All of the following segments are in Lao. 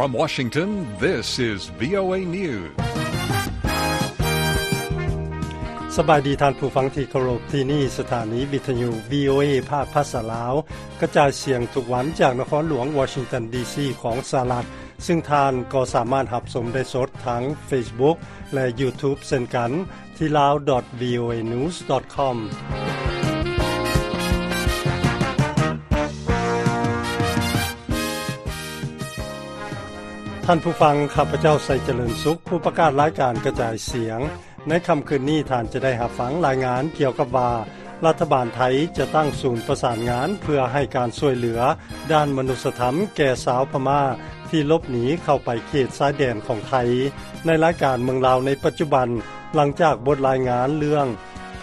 From Washington, this is VOA News. ສະບາຍດີທ່ານຜູ້ຟັງທີ່ເຄົາລົບ, ທີ່ນີ້ສະຖານີວິທະຍຸ VOA ພາກພາສາລາວ ກະຈາຍສຽງທຸກວັນຈາກນະຄອນຫຼວງວໍຊິງຕັນ ດີຊີ ຂອງສະຫະລັດ, ຊຶ່ງທ່ານກໍສາມາດຮັບຊົມໄດ້ສົດທາງ Facebook ແລະ YouTube ເຊັ່ນກັນ ທີ່ lao dot voanews dot com. ທ່ານຜູ້ຟັງ, ຂ້າພະເຈົ້າ ໄຊຈະເລີນສຸກ, ຜູ້ປະກາດລາຍການກະຈາຍສຽງ. ໃນຄ່ຳຄືນນີ້, ທ່ານຈະໄດ້ຮັບຟັງລາຍງານກ່ຽວກັບວ່າ ລັດຖະບານໄທຈະຕັ້ງສູນປະສານງານເພື່ອໃຫ້ການຊ່ວຍເຫຼືອດ້ານມະນຸດສະທຳແກ່ຊາວພະມ້າທີ່ຫຼົບໜີເຂົ້າໄປເຂດຊາຍແດນຂອງໄທ. ໃນລາຍການເມືອງລາວໃນປັດຈຸບັນ, ຫຼັງຈາກບົດລາຍງານເລື່ອງ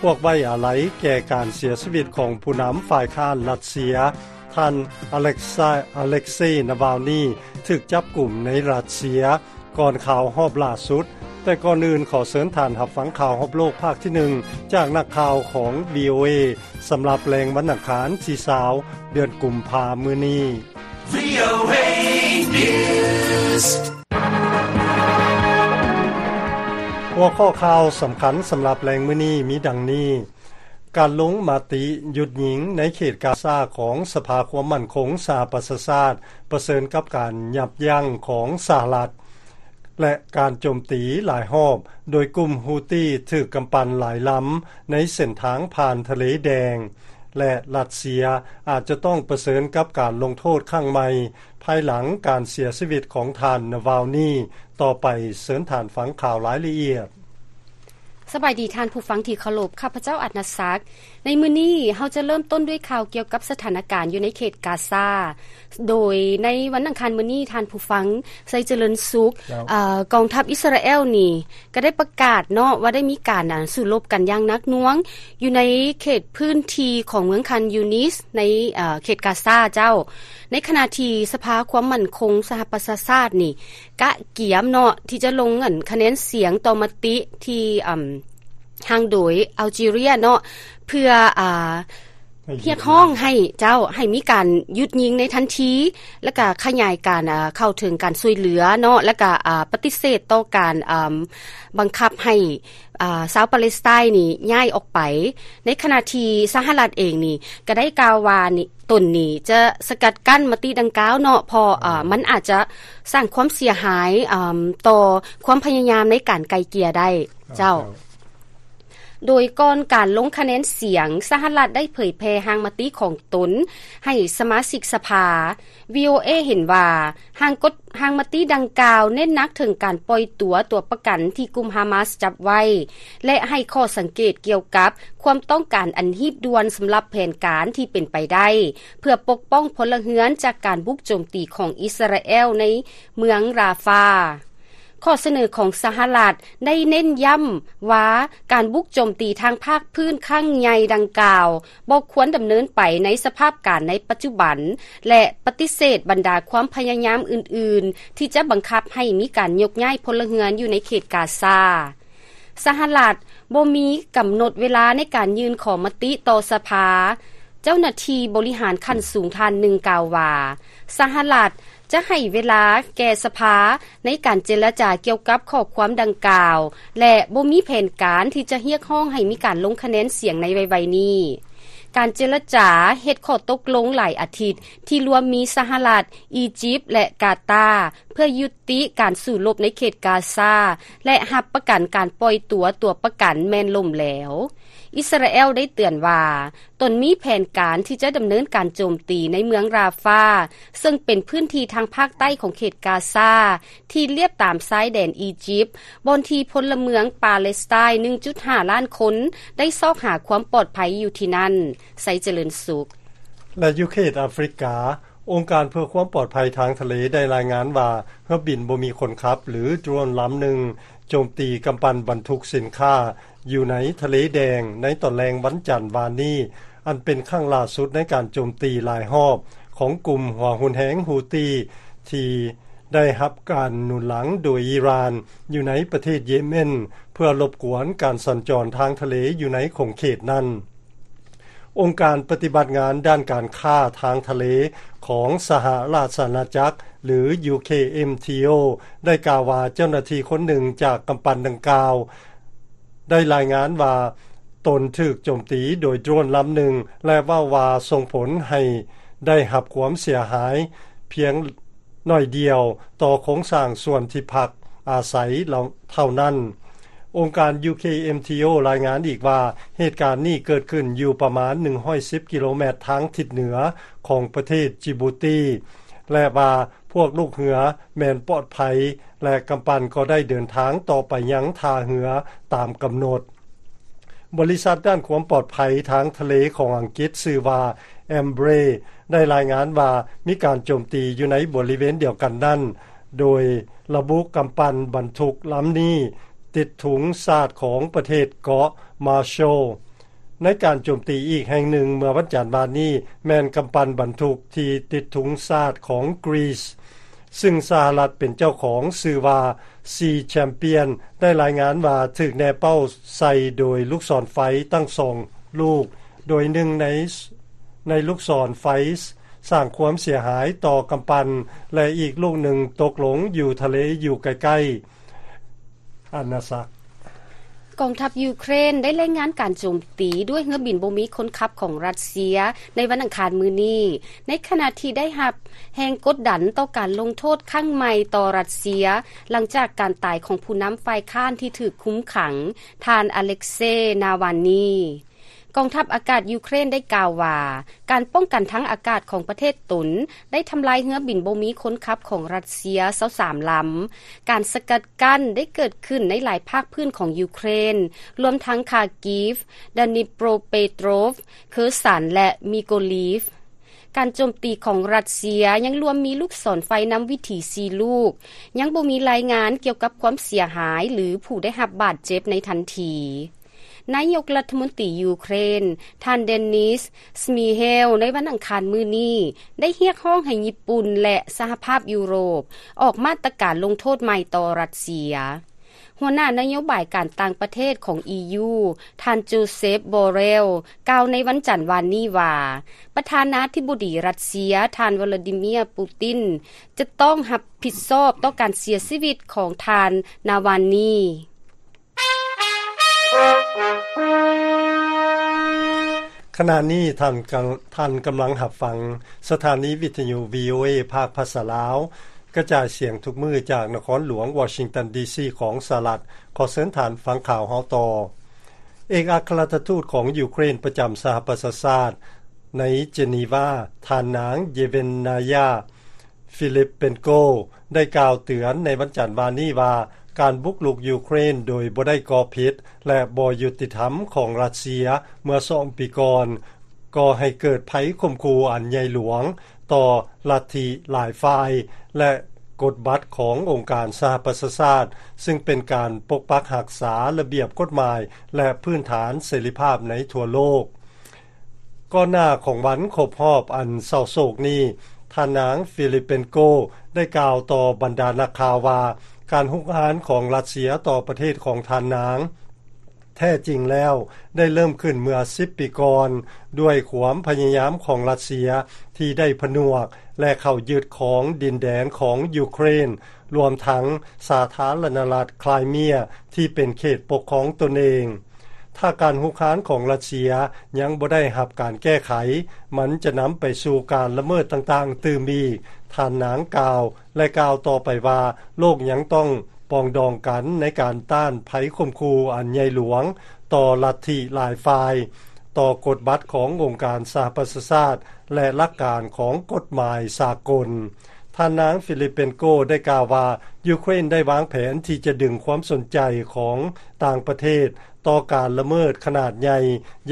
ພວກໄວ້ອາໄລແກ່ການເສຍຊີວິດຂອງຜູ້ນຳຝ່າຍຄ້ານຣັດເຊຍ, ທ່ານ ອາເລັກຊາ ອາເລັກເຊ ນາວາລນີ ຖືກຈັບກຸມໃນຣັດເຊຍ ກ່ອນຂ່າວຮອບລ່າສຸດ, ແຕ່ກ່ອນອື່ນຂໍເຊີນທ່ານຮັບຟັງຂ່າວຮອບໂລກພາກທີໜຶ່ງ ຈາກນັກຂ່າວຂອງ VOA ສຳລັບແລງວັນອັງຄານທີຊາວ ເດືອນກຸມພາມື້ນີ້. VOA News. ຫົວຂໍ້ຂ່າວສຳຄັນສຳລັບແລງມື້ນີ້ມີດັ່ງນີ້. ການລົງມະຕິຢຸດຍິງໃນເຂດກາຊາຂອງສະພາຄວາມໝັ້ນຄົງສະຫະປະຊາຊາດ ປະເຊີນກັບການຍັບຢັ້ງຂອງສະຫະລັດ ແລະ ການໂຈມຕີຫຼາຍຮອບໂດຍກຸ່ມຮູ້ຕີຖືກກຳປັ່ນຫຼາຍລຳໃນເສັ້ນທາງຜ່ານທະເລແດງ ແລະ ຣັດເຊຍອາດຈະຕ້ອງປະເຊີນກັບການລົງໂທດຄັ້ງໃໝ່ ພາຍຫຼັງການເສຍຊີວິດຂອງທ່ານ ນາວາລນີ. ຕໍ່ໄປເຊີນທ່ານຟັງຂ່າວລາຍລະອຽດ. ສະບາຍດີທ່ານຜູ້ຟັງທີ່ເຄົາລົບ, ຂ້າພະເຈົ້າ ອັດນະສັກ. ໃນມື້ນີ້ເຮົາຈະເລີ່ມຕົ້ນດ້ວຍຂ່າວກ່ຽວກັບສະຖານະການຢູ່ໃນເຂດກາຊາ. ໂດຍໃນວັນອັງຄານມື້ນີ້, ທ່ານຜູ້ຟັງ ໄຊຈະເລີນສຸກ, ເຈົ້າ. ເອີ ກອງທັບອິດສະຣາແອລນີ້ກໍໄດ້ປະກາດເນາະ ວ່າໄດ້ມີການ ອາ ສູ້ລົບກັນຢ່າງໜັກໜ່ວງຢູ່ໃນເຂດພື້ນທີ່ຂອງເມືອງຄານຢູນິດ ໃນ ເອີ ເຂດກາຊາເຈົ້າ. ໃນຂະນະທີ່ສະພາຄວາມໝັ້ນຄົງສະຫະປະຊາຊາດນີ້ ກະກຽມເນາະ ທີ່ຈະລົງ ອັນ ຄະແນນສຽງຕໍ່ມະຕິທີ່ ອາ ຮ່າງໂດຍອາລຈີເຣຍເນາະ ເພື່ອ ອາ ຮຽກຮ້ອງໃຫ້ເຈົ້າ ໃຫ້ມີການຢຸດຍິງໃນທັນທີ ແລະກະຂະຫຍາຍການ ອາ ເຂົ້າເຖິງການຊ່ວຍເຫຼືອເນາະ ແລະກະ ອາ ປະຕິເສດຕໍ່ການ ອາ ບັງຄັບໃຫ້ ອາ ຊາວປາເລສໄຕນີ້ຍ້າຍອອກໄປ. ໃນຂະນະທີ່ສະຫະລັດເອງນີ້ກະໄດ້ກ່າວວ່ານີ້ ຕົນນີ້ຈະສະກັດກັ້ນມະຕິດັ່ງກ່າວເນາະ ເພາະ ອາ ມັນອາດຈະສ້າງຄວາມເສຍຫາຍ ອາ ຕໍ່ຄວາມພະຍາຍາມໃນການໄກ່ເກ່ຍໄດ້ ເຈົ້າ. ໂດຍກ່ອນການລົງຄະແນນສຽງ, ສະຫະລັດໄດ້ເຜີຍແຜ່ຮ່າງມະຕິຂອງຕົນໃຫ້ສະມາຊິກສະພາ. VOA ເຫັນວ່າ ຮ່າງກົດ ຮ່າງມະຕິດັ່ງກ່າວເນັ້ນໜັກເຖິງການປ່ອຍຕົວຕົວປະກັນທີ່ກຸ່ມຮາມາສຈັບໄວ້ ແລະ ໃຫ້ຂໍ້ສັງເກດກ່ຽວກັບຄວາມຕ້ອງການອັນຮີບດ່ວນສຳລັບແຜນການທີ່ເປັນໄປໄດ້ ເພື່ອປົກປ້ອງພົນລະເຮືອນຈາກການບຸກໂຈມຕີຂອງອິດສະຣາແອລໃນເມືອງຣາຟາ. ຂໍ້ສະເໜີຂອງສະຫະລັດໄດ້ເນັ້ນຢ້ຳວ່າ ການບຸກໂຈມຕີທາງພາກພື້ນຄັ້ງໃຫຍ່ດັ່ງກ່າວ ບໍ່ຄວນດຳເນີນໄປໃນສະພາບການໃນປັດຈຸບັນ ແລະ ປະຕິເສດບັນດາຄວາມພະຍາຍາມອື່ນໆ ທີ່ຈະບັງຄັບໃຫ້ມີການຍົກຍ້າຍພົນລະເຮືອນຢູ່ໃນເຂດກາຊາ. ສະຫະລັດບໍ່ມີກຳນົດເວລາໃນການຍື່ນຂໍມະຕິຕໍ່ສະພາ. ເຈົ້າໜ້າທີ່ບໍລິຫານຂັ້ນສູງທ່ານໜຶ່ງກ່າວວ່າ ສະຫະລັດຈະໃຫ້ເວລາແກ່ສະພາໃນການເຈລະຈາກ່ຽວກັບຂໍ້ຄວາມດັ່ງກ່າວ ແລະ ບໍ່ມີແຜນການທີ່ຈະຮຽກຮ້ອງໃຫ້ມີການລົງຄະແນນສຽງໃນໄວໆນີ້. ການເຈລະຈາເຮັດຂໍ້ຕົກລົງຫຼາຍອາທິດ ທີ່ລວມມີສະຫະລັດ, ອີຢິບ ແລະ ກາຕາ ເພື່ອຍຸຕິການສູ້ລົບໃນເຂດກາຊາ ແລະ ຮັບປະກັນການປ່ອຍຕົວຕົວປະກັນແມ່ນລົ້ມແຫຼວ. ອິດສະຣາແອລໄດ້ເຕືອນວ່າ ຕົນມີແຜນການທີ່ຈະດຳເນີນການໂຈມຕີໃນເມືອງຣາຟາ ເຊິ່ງເປັນພື້ນທີ່ທາງພາກໃຕ້ຂອງເຂດກາຊາ ທີ່ລຽບຕາມຊາຍແດນອີຢິບ ບ່ອນທີ່ພົນລະເມືອງປາເລສໄຕໜຶ່ງຈຸດຫ້າລ້ານຄົນ ໄດ້ຊອກຫາຄວາມປອດໄພຢູ່ທີ່ນັ້ນ. ໄຊຈະເລີນສຸກ. ແລະ ຢູ່ເຂດອາຟຣິກາ, ອົງການເພື່ອຄວາມປອດໄພທາງທະເລໄດ້ລາຍງານວ່າ ເຮືອບິນບໍ່ມີຄົນຂັບ ຫຼື ໂດຣນລຳໜຶ່ງ ໂຈມຕີກຳປັ່ນບັນທຸກສິນຄ້າຢູ່ໃນທະເລແດງໃນຕອນແລງວັນຈັນວານນີ້, ອັນເປັນຄັ້ງລ່າສຸດໃນການໂຈມຕີຫຼາຍຮອບຂອງກຸ່ມຫົວຮຸນແຮງຮູ້ຕີ ທີ່ໄດ້ຮັບການໜູນຫຼັງໂດຍອີຣານ ຢູ່ໃນປະເທດເຢເມັນ ເພື່ອລົບກວນການສັນຈອນທາງທະເລຢູ່ໃນຂົງເຂດນັ້ນ. ອົງການປະຕິບັດງານດ້ານການຄ້າທາງທະເລຂອງສະຫະລາຊະອານາຈັກ ຫຼື UKMTO ໄດ້ກ່າວວ່າເຈົ້າໜ້າທີ່ຄົນໜຶ່ງຈາກກຳປັ່ນດັ່ງກ່າວ ໄດ້ລາຍງານວ່າຕົນຖືກໂຈມຕີໂດຍໂດຣນລຳໜຶ່ງ ແລະ ເວົ້າວ່າສົ່ງຜົນໃຫ້ໄດ້ຮັບຄວາມເສຍຫາຍພຽງໜ້ອຍດຽວຕໍ່ໂຄງສ້າງສ່ວນທີ່ພັກອາໄສເຫຼົ່າ ເທົ່ານັ້ນ. ອົງການ UKMTO ລາຍງານອີກວ່າ ເຫດການນີ້ເກີດຂຶ້ນຢູ່ປະມານໜຶ່ງຮ້ອຍສິບກິໂລແມັດທາງທິດເໜືອຂອງປະເທດຈິບູຕີ ແລະ ວ່າພວກລູກເຮືອແມ່ນປອດໄພ ແລະ ກຳປັ່ນກໍໄດ້ເດີນທາງຕໍ່ໄປຍັງທ່າເຮືອຕາມກຳນົດ. ບໍລິສັດດ້ານຄວາມປອດໄພທາງທະເລຂອງອັງກິດ ຊື່ວ່າ Embraer ໄດ້ລາຍງານວ່າມີການໂຈມຕີຢູ່ໃນບໍລິເວນດຽວກັນນັ້ນ ໂດຍລະບຸກຳປັ່ນບັນທຸກລຳນີ້ຕິດທຸງຊາດຂອງປະເທດເກາະ Marshall. ໃນການໂຈມຕີອີກແຫ່ງໜຶ່ງເມື່ອວັນຈັນວານນີ້ ແມ່ນກຳປັ່ນບັນທຸກທີ່ຕິດທຸງຊາດຂອງ Greece ຊຶ່ງສະຫະລັດເປັນເຈົ້າຂອງ ຊື່ວ່າ Sea Champion ໄດ້ລາຍງານວ່າຖືກແນເປົ້າໃສ່ໂດຍລູກສອນໄຟທັງສອງລູກ ໂດຍໜຶ່ງໃນ ໃນລູກສອນໄຟສ້າງຄວາມເສຍຫາຍຕໍ່ກຳປັ່ນ ແລະ ອີກລູກໜຶ່ງຕົກລົງຢູ່ທະເລຢູ່ໃກ້ໆ ອານາຊັກ. ກອງທັບຢູເຄຣນໄດ້ລາຍງານການໂຈມຕີດ້ວຍເຮືອບິນບໍ່ມີຄົນຂັບຂອງຣັດເຊຍໃນວັນອັງຄານມື້ນີ້ ໃນຂະນະທີ່ໄດ້ຮັບແຮງກົດດັນຕໍ່ການລົງໂທດຄັ້ງໃໝ່ຕໍ່ຣັດເຊຍ ຫຼັງຈາກການຕາຍຂອງຜູ້ນຳຝ່າຍຄ້ານທີ່ຖືກຄຸມຂັງ ທ່ານ ອາເລັກເຊ ນາວານນີ. ກອງທັບອາກາດຢູເຄຣນໄດ້ກ່າວວ່າ ການປ້ອງກັນທາງອາກາດຂອງປະເທດຕົນໄດ້ທຳລາຍເຮືອບິນບໍ່ມີຄົນຂັບຂອງຣັດເຊຍຊາວສາມລຳ. ການສະກັດກັ້ນໄດ້ເກີດຂຶ້ນໃນຫຼາຍພາກພື້ນຂອງຢູເຄຣນ, ລວມທັງ Kharkiv, Dnipropetrovsk, Kherson ແລະ Mykolaiv. ການໂຈມຕີຂອງຣັດເຊຍຍັງລວມມີລູກສອນໄຟນຳວິຖີສີ່ລູກ, ຍັງບໍ່ມີລາຍງານກ່ຽວກັບຄວາມເສຍຫາຍ ຫຼື ຜູ້ໄດ້ຮັບບາດເຈັບໃນທັນທີ. ນາຍົກລັດຖະມົນຕີຢູເຄຣນ ທ່ານ ເດນິສ ສະມີເຮວ ໃນວັນອັງຄານມື້ນີ້ ໄດ້ຮຽກຮ້ອງໃຫ້ຍີ່ປຸ່ນ ແລະ ສະຫະພາບຢູໂຣບ ອອກມາດຕະການລົງໂທດໃໝ່ຕໍ່ຣັດເຊຍ. ຫົວໜ້ານະໂຍບາຍການຕ່າງປະເທດຂອງ ອີຢູ ທ່ານ ໂຈເຊັບ ບອເຣວ ກ່າວໃນວັນຈັນວານນີ້ວ່າ ປະທານາທິບໍດີຣັດເຊຍ ທ່ານ ວລາດີເມຍ ປູຕິນ ຈະຕ້ອງຮັບຜິດຊອບຕໍ່ການເສຍຊີວິດຂອງທ່ານ ນາວານນີ. ຂະນະນີ້ທ່ານກຳ ທ່ານກຳລັງຮັບຟັງສະຖານີວິທະຍຸ ວີໂອເອ ພາກພາສາລາວ ກະຈາຍສຽງທຸກມື້ຈາກນະຄອນຫຼວງວໍຊິງຕັນ ດີຊີ ຂອງສະຫະລັດ. ຂໍເຊີນທ່ານຟັງຂ່າວເຮົາຕໍ່. ເອກອັກຄະລັດຖະທູດຂອງຢູເຄຣນປະຈຳສະຫະປະຊາຊາດໃນເຈນີວາ ທ່ານນາງ ເຢເວັນນາຍາ ຟີລິບເປນໂກ ໄດ້ກ່າວເຕືອນໃນວັນຈັນວານນີ້ວ່າ ການບຸກລຸກຢູເຄຣນໂດຍບໍ່ໄດ້ກອບເຫດ ແລະ ບໍ່ຍຸຕິທຳຂອງຣັດເຊຍເມື່ອສອງປີກ່ອນ ກໍ່ໃຫ້ເກີດໄພຂົ່ມຂູ່ອັນໃຫຍ່ຫຼວງຕໍ່ລັດທິຫຼາຍຝ່າຍ ແລະ ກົດບັດຂອງອົງການສະຫະປະຊາຊາດ ຊຶ່ງເປັນການປົກປັກຮັກສາລະບຽບກົດໝາຍ ແລະ ພື້ນຖານເສລີພາບໃນທົ່ວໂລກ. ກ່ອນໜ້າຂອງວັນຄົບຮອບອັນເສົ້າໂສກນີ້, ທ່ານນາງ ຟີລິບເປນໂກ ໄດ້ກ່າວຕໍ່ບັນດານັກຂ່າວວ່າ ການຮຸກຮານຂອງຣັດເຊຍຕໍ່ປະເທດຂອງທ່ານນາງ ແທ້ຈິງແລ້ວໄດ້ເລີ່ມຂຶ້ນເມື່ອສິບປີກ່ອນ ດ້ວຍຄວາມພະຍາຍາມຂອງຣັດເຊຍທີ່ໄດ້ຜະໜວກ ແລະ ເຂົ້າຍຶດຄອງດິນແດນຂອງຢູເຄຣນ, ລວມທັງສາທາລະນະລັດຄຣາຍເມຍທີ່ເປັນເຂດປົກຄອງຕົນເອງ. ຖ້າການຮຸກຮານຂອງຣັດເຊຍຍັງບໍ່ໄດ້ຮັບການແກ້ໄຂ, ມັນຈະນຳໄປສູ່ການລະເມີດຕ່າງໆຕື່ມອີກ, ທ່ານນາງກ່າວ ແລະ ກ່າວຕໍ່ໄປວ່າ ໂລກຍັງຕ້ອງປອງດອງກັນໃນການຕ້ານໄພຂົ່ມຂູ່ອັນໃຫຍ່ຫຼວງຕໍ່ລັດທິຫຼາຍຝ່າຍ, ຕໍ່ກົດບັດຂອງອົງການສະຫະປະຊາຊາດ ແລະ ຫຼັກການຂອງກົດໝາຍສາກົນ. ທ່ານນາງ ຟີລິບເປນໂກ ໄດ້ກ່າວວ່າ ຢູເຄຣນໄດ້ວາງແຜນທີ່ຈະດຶງຄວາມສົນໃຈຂອງຕ່າງປະເທດຕໍ່ການລະເມີດຂະໜາດໃຫຍ່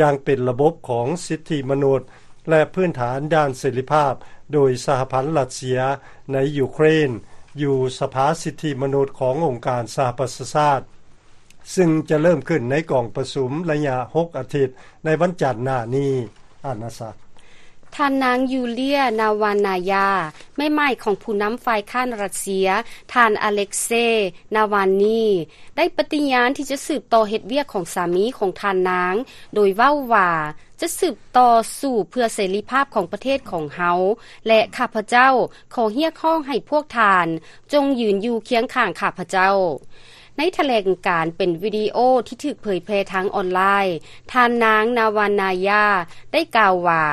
ຢ່າງເປັນລະບົບຂອງສິດທິມະນຸດ ແລະ ພື້ນຖານດ້ານເສລີພາບ ໂດຍສະຫະພັນຣັດເຊຍໃນຢູເຄຣນ ຢູ່ສະພາສິດທິມະນຸດຂອງອົງການສະຫະປະຊາຊາດ ຊຶ່ງຈະເລີ່ມຂຶ້ນໃນກອງປະຊຸມໄລຍະຫົກອາທິດໃນວັນຈັນໜ້ານີ້. ອານາຊັກ. ທ່ານນາງ ຢູເລຍ ນາວານາຍາ ແມ່ໝ້າຍຂອງຜູ້ນຳຝ່າຍຄ້ານຣັດເຊຍ, ທ່ານ ອາເລັກເຊ ນາວານນີ ໄດ້ປະຕິຍານທີ່ຈະສືບຕໍ່ເຮັດວຽກຂອງສາມີຂອງທ່ານນາງ, ໂດຍເວົ້າວ່າ ຈະສືບຕໍ່ສູ້ເພື່ອເສລີພາບຂອງປະເທດຂອງເຮົາ ແລະ ຂ້າພະເຈົ້າຂໍຮຽກຮ້ອງໃຫ້ພວກທ່ານຈົ່ງຢືນຢູ່ຄຽງຂ້າງຂ້າພະເຈົ້າ. ໃນຖະແຫຼງການເປັນວິດີໂອທີ່ຖືກເຜີຍແຜ່ທາງອອນລາຍ, ທ່ານນາງ ນາວານນາຍາ ໄດ້ກ່າວວ່າ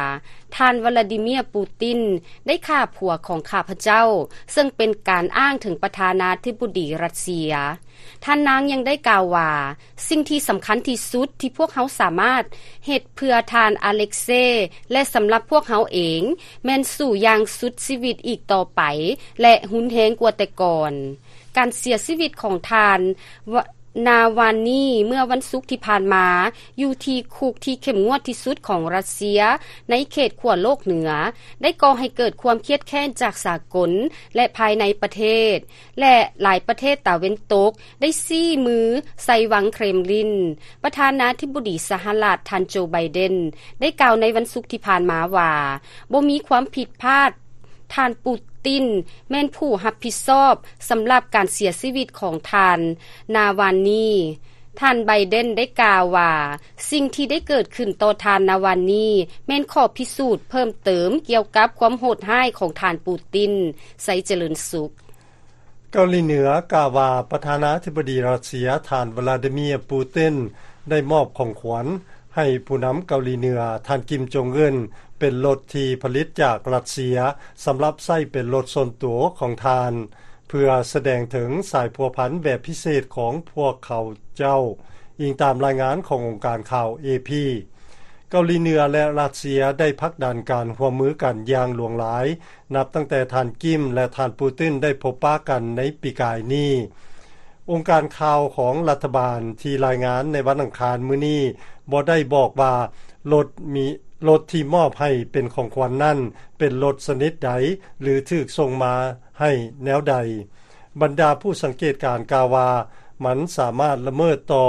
ທ່ານ ວລາດີເມຍ ປູຕິນ ໄດ້ຂ້າຜົວຂອງຂ້າພະເຈົ້າ, ເຊິ່ງເປັນການອ້າງເຖິງປະທານາທິບໍດີຣັດເຊຍ. ທ່ານນາງຍັງໄດ້ກ່າວວ່າ ສິ່ງທີ່ສຳຄັນທີ່ສຸດທີ່ພວກເຮົາສາມາດເຮັດເພື່ອທ່ານ ອາເລັກເຊ ແລະ ສຳລັບພວກເຮົາເອງ ແມ່ນສູ້ຢ່າງສຸດຊີວິດອີກຕໍ່ໄປ ແລະ ຮຸນແຮງກວ່າແຕ່ກ່ອນ. ການເສຍຊີວິດຂອງທ່ານ ວະ ນາວານນີ ເມື່ອວັນສຸກທີ່ຜ່ານມາ ຢູ່ທີ່ຄຸກທີ່ເຂັ້ມງວດທີ່ສຸດຂອງຣັດເຊຍ ໃນເຂດຂົ້ວໂລກເໜືອ ໄດ້ກໍ່ໃຫ້ເກີດຄວາມຄຽດແຄ້ນຈາກສາກົນ ແລະ ພາຍໃນປະເທດ ແລະ ຫຼາຍປະເທດຕາເວັນຕົກ ໄດ້ຊີ້ມືໃສ່ວັງເຄຣມລິນ. ປະທານາທິບໍດີສະຫະລັດ ທ່ານ ໂຈ ໄບເດັນ ໄດ້ກ່າວໃນວັນສຸກທີ່ຜ່ານມາວ່າ ບໍ່ມີຄວາມຜິດພາດ, ທ່ານ ປູຕິນ ແມ່ນຜູ້ຮັບຜິດຊອບສຳລັບການເສຍຊີວິດຂອງທ່ານ ນາວານນີ. ທ່ານ ໄບເດັນ ໄດ້ກ່າວວ່າ ສິ່ງທີ່ໄດ້ເກີດຂຶ້ນຕໍ່ທ່ານ ນາວານນີ ແມ່ນຂໍ້ພິສູດເພີ່ມເຕີມກ່ຽວກັບຄວາມໂຫດຮ້າຍຂອງທ່ານ ປູຕິນ ໄຊຈະເລີນສຸກ. ເກົາຫຼີເໜືອກ່າວວ່າ ປະທານາທິບໍດີຣັດເຊຍ ທ່ານ ວລາດີເມຍ ປູຕິນ ໄດ້ມອບຂອງຂວັນໃຫ້ຜູ້ນຳເກົາຫຼີເໜືອ ທ່ານ ກິມ ຈົງອຶນ ເປັນລົດທີ່ຜະລິດຈາກຣັດເຊຍ ສຳລັບໃຊ້ເປັນລົດສ່ວນຕົວຂອງທ່ານ ເພື່ອສະແດງເຖິງສາຍພົວພັນແບບພິເສດຂອງພວກເຂົາເຈົ້າ, ອີງຕາມລາຍງານຂອງອົງການຂ່າວ ເອ ພີ. ເກົາຫຼີເໜືອ ແລະ ຣັດເຊຍ ໄດ້ຜັກດັນການຮ່ວມມືກັນຢ່າງຫຼວງຫຼາຍ ນັບຕັ້ງແຕ່ທ່ານ ກິມ ແລະ ທ່ານ ປູຕິນ ໄດ້ພົບປະກັນໃນປີກາຍນີ້. ອົງການຂ່າວຂອງລັດຖະບານທີ່ລາຍງານໃນວັນອັງຄານມື້ນີ້ ບໍ່ໄດ້ບອກວ່າລົດມີ, ລົດທີ່ມອບໃຫ້ເປັນຂອງຂວັນນັ້ນ ເປັນລົດຊະນິດໃດ ຫຼື ຖືກສົ່ງມາໃຫ້ແນວໃດ. ບັນດາຜູ້ສັງເກດການກ່າວວ່າ ມັນສາມາດລະເມີດຕໍ່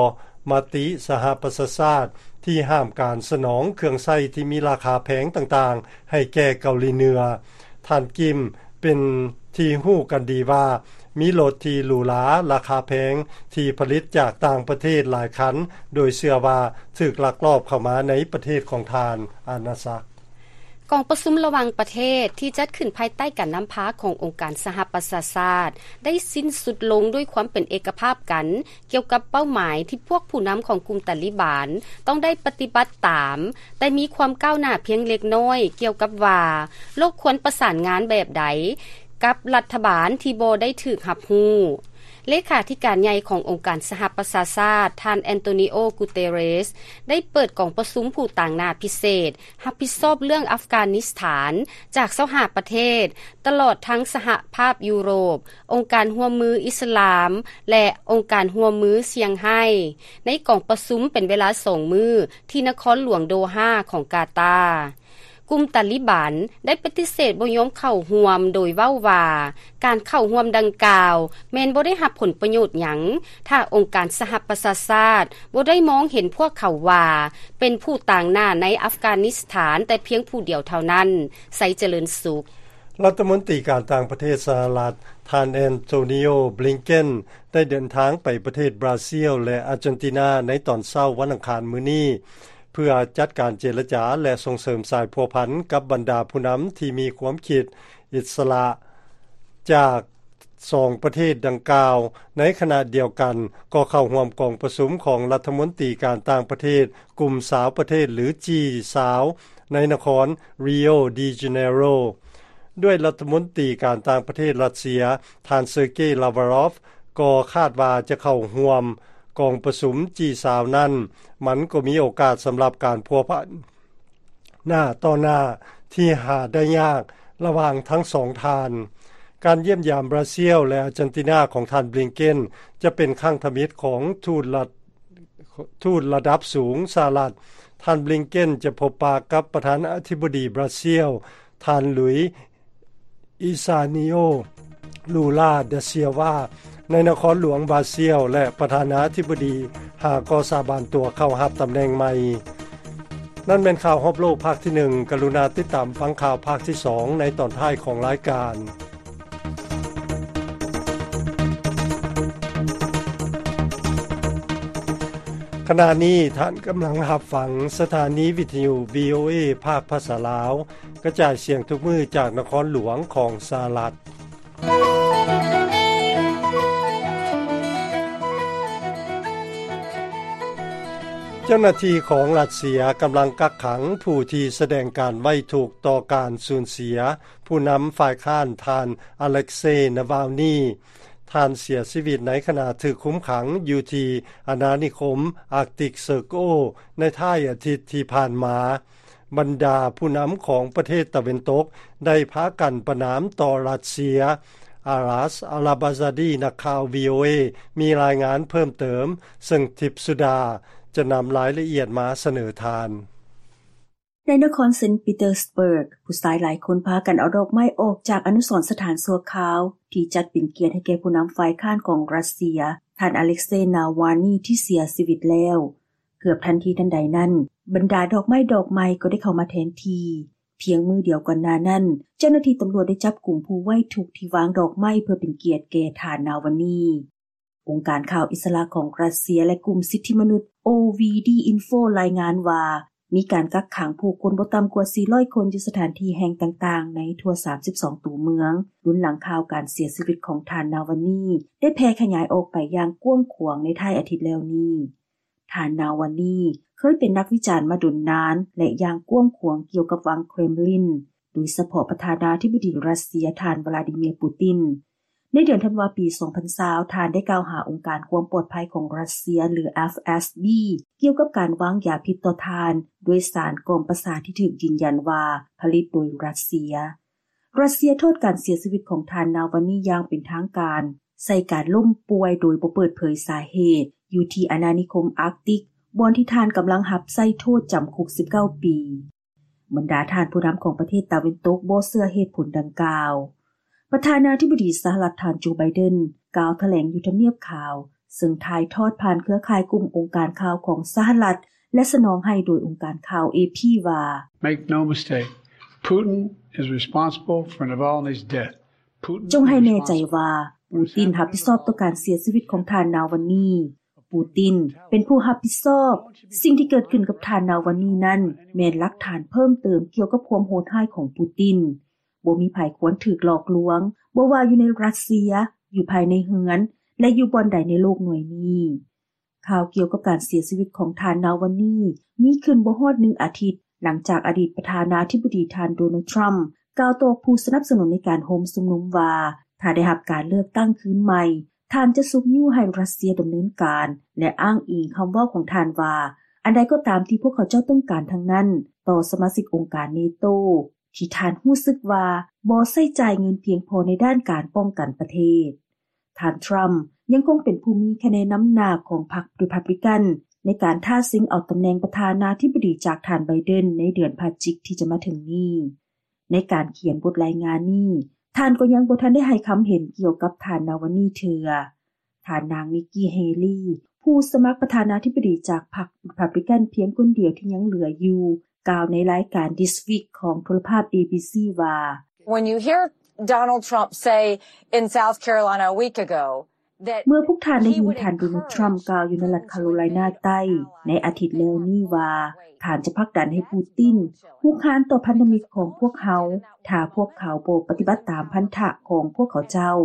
ມະຕິສະຫະປະຊາຊາດ ທີ່ຫ້າມການສະໜອງເຄື່ອງໃຊ້ທີ່ມີລາຄາແພງຕ່າງໆ ໃຫ້ແກ່ເກົາຫຼີເໜືອ. ທ່ານ ກິມ ເປັນທີ່ຮູ້ກັນດີວ່າ ມີລົດທີ່ຫຼູຫຼາລາຄາແພງທີ່ຜະລິດຈາກຕ່າງປະເທດຫຼາຍຄັນ ໂດຍເຊື່ອວ່າຖືກລັກລອບເຂົ້າມາໃນປະເທດຂອງທ່ານ ອານາຊັກ. ກອງປະຊຸມລະຫວ່າງປະເທດທີ່ຈັດຂຶ້ນພາຍໃຕ້ການນຳພາຂອງອົງການສະຫະປະຊາຊາດ ໄດ້ສິ້ນສຸດລົງດ້ວຍຄວາມເປັນເອກະພາບກັນ ກ່ຽວກັບເປົ້າໝາຍທີ່ພວກຜູ້ນຳຂອງກຸ່ມຕາລີບານຕ້ອງໄດ້ປະຕິບັດຕາມ, ແຕ່ມີຄວາມກ້າວໜ້າພຽງເລັກນ້ອຍກ່ຽວກັບວ່າ ໂລກຄວນປະສານງານແບບໃດກັບລັດຖະບານທີ່ບໍ່ໄດ້ຖືກຮັບຮູ້. ເລຂາທິການໃຫຍ່ຂອງອົງການສະຫະປະຊາຊາດ ທ່ານ ແອນໂຕນີໂອ ກູເຕເຣສ ໄດ້ເປີດກອງປະຊຸມຜູ້ຕາງໜ້າພິເສດ ຮັບຜິດຊອບເລື່ອງອັຟການິສຖານ ຈາກຊາວຫ້າປະເທດ, ຕະຫຼອດທັງສະຫະພາບຢູໂຣບ, ອົງການຮ່ວມມືອິດສະລາມ ແລະ ອົງການຮ່ວມມືຊຽງໄຮ້ ໃນກອງປະຊຸມເປັນເວລາສອງມື້ ທີ່ນະຄອນຫຼວງໂດຮາຂອງກາຕາ. ກຸ່ມຕາລີບານໄດ້ປະຕິເສດບໍ່ຍອມເຂົ້າຮ່ວມ ໂດຍເວົ້າວ່າ ການເຂົ້າຮ່ວມດັ່ງກ່າວແມ່ນບໍ່ໄດ້ຮັບຜົນປະໂຫຍດຫຍັງ ຖ້າອົງການສະຫະປະຊາຊາດບໍ່ໄດ້ມອງເຫັນພວກເຂົາວ່າ ເປັນຜູ້ຕາງໜ້າໃນອັຟການິສຖານແຕ່ພຽງຜູ້ດຽວເທົ່ານັ້ນ. ໄຊຈະເລີນສຸກ. ລັດຖະມົນຕີການຕ່າງປະເທດສະຫະລັດ ທ່ານ ແອນໂທນີໂອ ບລິງເກັນ ໄດ້ເດີນທາງໄປປະເທດບຣາຊິລ ແລະ ອາເຈນຕິນາ ໃນຕອນເຊົ້າວັນອັງຄານມື້ນີ້ ເພື່ອຈັດການເຈລະຈາ ແລະ ສົ່ງເສີມສາຍພົວພັນກັບບັນດາຜູ້ນຳທີ່ມີຄວາມຄິດອິດສະຫຼະຈາກ ສອງປະເທດດັ່ງກ່າວ. ໃນຂະນະດຽວກັນ ກໍເຂົ້າຮ່ວມກອງປະຊຸມຂອງລັດຖະມົນຕີການຕ່າງປະເທດກຸ່ມຊາວປະເທດ ຫຼື ຈີຊາວ ໃນນະຄອນ Rio de Janeiro ດ້ວຍລັດຖະມົນຕີການຕ່າງປະເທດຣັດເຊຍ ທ່ານ ເຊີເກ ລາວາຣອຟ ກໍຄາດວ່າຈະເຂົ້າຮ່ວມກອງປະຊຸມ ຈີຊາວ ນັ້ນ, ມັນກໍມີໂອກາດສຳລັບການພົວພັນ ໜ້າຕໍ່ໜ້າທີ່ຫາໄດ້ຍາກລະຫວ່າງທັງສອງທ່ານ. ການຢ້ຽມຢາມບຣາຊິລ ແລະ ອາເຈນຕິນາຂອງທ່ານ ບລິງເກັນ ຈະເປັນຄັ້ງທຳອິດຂອງທູດລັດ ທູດລະດັບສູງສະຫະລັດ. ທ່ານ ບລິງເກັນ ຈະພົບປະກັບປະທານາທິບໍດີບຣາຊິລ ທ່ານ ລຸຍ ອິຊານິໂອ ລູລາ ດາ ຊຽວາ ໃນນະຄອນຫຼວງບຣາຊິລ ແລະ ປະທານາທິບໍດີ ຫາກໍສາບານຕົວເຂົ້າຮັບຕຳແໜ່ງໃໝ່. ນັ້ນແມ່ນຂ່າວຮອບໂລກພາກທີໜຶ່ງ. ກະລຸນາຕິດຕາມຟັງຂ່າວພາກທີສອງໃນຕອນທ້າຍຂອງລາຍການ. ຂະນະນີ້ທ່ານກຳລັງຮັບຟັງສະຖານີວິທະຍຸ ວີໂອເອ ພາກພາສາລາວ ກະຈາຍສຽງທຸກມື້ຈາກນະຄອນຫຼວງຂອງສະຫະລັດ. ເຈົ້າໜ້າທີ່ຂອງຣັດເຊຍກຳລັງກັກຂັງຜູ້ທີ່ສະແດງການໄວ້ທຸກຕໍ່ການສູນເສຍຜູ້ນຳຝ່າຍຄ້ານ ທ່ານ ອາເລັກເຊ ນາວາລນີ. ທ່ານເສຍຊີວິດໃນຂະນະຖືກຄຸມຂັງຢູ່ທີ່ອານານິຄົມ Arctic Circle ໃນທ້າຍອາທິດທີ່ຜ່ານມາ. ບັນດາຜູ້ນຳຂອງປະເທດຕາເວັນຕົກໄດ້ພາກັນປະນາມຕໍ່ຣັດເຊຍ. ອາລັດ ອາລາບາຊາດີ ນັກຂ່າວ ວີໂອເອ ມີລາຍງານເພີ່ມເຕີມ, ເຊິ່ງທິບສຸດາຈະນຳລາຍລະອຽດມາສະເໜີທ່ານ. ໃນນະຄອນເຊນต์ປີເຕີສເບີກ, ຜູ້ຊາຍຫຼາຍຄົນພາກັນເອົາດອກໄມ້ອອກຈາກອະນຸສອນສະຖານຊົ່ວຄາວ ທີ່ຈັດເປັນກຽດໃຫ້ແກ່ຜູ້ນຳຝ່າຍຄ້ານຂອງຣັດເຊຍ, ທ່ານ ອາເລັກເຊ ນາວາລນີ ທີ່ເສຍຊີວິດແລ້ວ. ເກືອບທັນທີທັນໃດນັ້ນ, ບັນດາດອກໄມ້ດອກໃໝ່ກໍໄດ້ເຂົ້າມາແທນທີ່. ພຽງມື້ດຽວກ່ອນໜ້ານັ້ນ, ເຈົ້າໜ້າທີ່ຕຳຫຼວດໄດ້ຈັບກຸມຜູ້ໄວ້ທຸກທີ່ວາງດອກໄມ້ເພື່ອເປັນກຽດແກ່ທ່ານ ນາວາລນີ. ອົງການຂ່າວອິດສະຫຼະຂອງຣັດເຊຍ ແລະ ກຸ່ມສິດທິມະນຸດ ໂອ ວີ ດີ ອິນໂຟ ລາຍງານວ່າ ມີການກັກຂັງຜູ້ຄົນບໍ່ຕ່ຳກວ່າສີ່ຮ້ອຍຄົນຢູ່ສະຖານທີ່ແຫ່ງຕ່າງໆໃນທົ່ວສາມສິບສອງຕົວເມືອງ, ລຸນຫຼັງຂ່າວການເສຍຊີວິດຂອງທ່ານ ນາວາລນີ ໄດ້ແຜ່ຂະຫຍາຍອອກໄປຢ່າງກວ້າງຂວາງໃນທ້າຍອາທິດແລ້ວນີ້. ທ່ານ ນາວາລນີ ເຄີຍເປັນນັກວິຈານມາດົນນານ ແລະ ຢ່າງກວ້າງຂວາງກ່ຽວກັບວັງເຄຣມລິນ, ໂດຍສະເພາະປະທານາທິບໍດີຣັດເຊຍ ທ່ານ ວລາດີເມຍ ປູຕິນ. ໃນເດືອນທັນວາປີສອງພັນຊາວ ທ່ານໄດ້ກ່າວຫາອົງການຄວາມປອດໄພຂອງຣັດເຊຍ ຫຼື ເອຟ ເອສ ບີ ກ່ຽວກັບການວາງຢາພິດຕໍ່ທ່ານ ດ້ວຍສານກ່ອມປະສາດທີ່ຖືກຢືນຢັນວ່າຜະລິດໂດຍຣັດເຊຍ. ຣັດເຊຍໂທດການເສຍຊີວິດຂອງທ່ານ ນາວາລນີ ຢ່າງເປັນທາງການ ໃສ່ການລົ້ມປ່ວຍໂດຍບໍ່ເປີດເຜີຍສາເຫດ ຢູ່ທີ່ອານານິຄົມອາກຕິກ ບ່ອນທີ່ທ່ານກຳລັງຮັບໃຊ້ໂທດຈຳຄຸກສິບເກົ້າປີ. ບັນດາທ່ານຜູ້ນຳຂອງປະເທດຕາເວັນຕົກບໍ່ເຊື່ອເຫດຜົນດັ່ງກ່າວ. ປະທານາທິບໍດີສະຫະລັດ ທ່ານ ໂຈ ໄບເດັນ ກ່າວຖະແຫຼງຢູ່ທຳນຽບຂາວ, ເຊິ່ງຖ່າຍທອດຜ່ານເຄືອຂ່າຍກຸ່ມອົງການຂ່າວຂອງສະຫະລັດ ແລະ ສະໜອງໃຫ້ໂດຍອົງການຂ່າວ ເອ ພີ ວ່າ Make no mistake, Putin is responsible for Navalny's death. ຈົ່ງໃຫ້ແນ່ໃຈວ່າ ປູຕິນຮັບຜິດຊອບຕໍ່ການເສຍຊີວິດຂອງທ່ານ ນາວາລນີ. ປູຕິນເປັນຜູ້ຮັບຜິດຊອບ. ສິ່ງທີ່ເກີດຂຶ້ນກັບທ່ານ ນາວາລນີ ນັ້ນ ແມ່ນຫຼັກຖານເພີ່ມເຕີມກ່ຽວກັບຄວາມໂຫດຮ້າຍຂອງປູຕິນ. ບໍ່ມີໃຜຄວນຖືກຫຼອກລວງ, ບໍ່ວ່າຢູ່ໃນຣັດເຊຍ, ຢູ່ພາຍໃນເຮືອນ ແລະ ຢູ່ບ່ອນໃດໃນໂລກໜ່ວຍນີ້. ຂ່າວກ່ຽວກັບການເສຍຊີວິດຂອງທ່ານ ນາວາລນີ ມີຂຶ້ນບໍ່ຮອດໜຶ່ງອາທິດ ຫຼັງຈາກອະດີດປະທານາທິບໍດີທ່ານ ໂດນັລ ທຣຳ ກ່າວຕໍ່ຜູ້ສະໜັບສະໜູນໃນການໂຮມຊຸມນຸມວ່າ ຖ້າໄດ້ຮັບການເລືອກຕັ້ງຄືນໃໝ່, ທ່ານຈະຊຸກຍູ້ໃຫ້ຣັດເຊຍດຳເນີນການ ແລະ ອ້າງອີງຄຳເວົ້າຂອງທ່ານວ່າ ອັນໃດກໍຕາມທີ່ພວກເຂົາເຈົ້າຕ້ອງການທັງນັ້ນ ຕໍ່ສະມາຊິກອົງການເນໂຕ ທີ່ທ່ານຮູ້ສຶກວ່າບໍ່ໃຊ້ຈ່າຍເງິນພຽງພໍໃນດ້ານການປ້ອງກັນປະເທດ. ທ່ານ ທຣຳ ຍັງຄົງເປັນຜູ້ມີຄະແນນນຳໜ້າຂອງພັກ Republican ໃນການທ້າຊິງເອົາຕຳແໜ່ງປະທານາທິບໍດີຈາກທ່ານ ໄບເດັນ ໃນເດືອນພະຈິກທີ່ຈະມາເຖິງນີ້. ໃນການຂຽນບົດລາຍງານນີ້, ທ່ານກໍຍັງບໍ່ທັນໄດ້ໃຫ້ຄຳເຫັນກ່ຽວກັບທ່ານ ນາວາລນີ ເທື່ອ. ທ່ານນາງ ນິກກີ່ ເຮລີ ຜູ້ສະໝັກປະທານາທິບໍດີຈາກພັກ Republican ພຽງຄົນດຽວທີ່ຍັງເຫຼືອຢູ່ ກ່າວໃນລາຍການ This Week ຂອງໂທລະພາບ ເອບີຊີ ວ່າ When you hear Donald Trump say in South Carolina a week ago that ເມື່ອພວກທ່ານໄດ້ຍິນທ່ານ ໂດນັລ ທຣຳ ກ່າວຢູ່ໃນລັດຄາໂຣໄລນາໃຕ້ໃນອາທິດແລ້ວນີ້ວ່າ ທ່ານຈະຜັກດັນໃຫ້ປູຕິນຮຸກຮານຕໍ່ພັນທະມິດຂອງພວກເຮົາ ຖ້າພວກເຂົາບໍ່ປະຕິບັດຕາມພັນທະຂອງພວກເຂົາເຈົ້າ.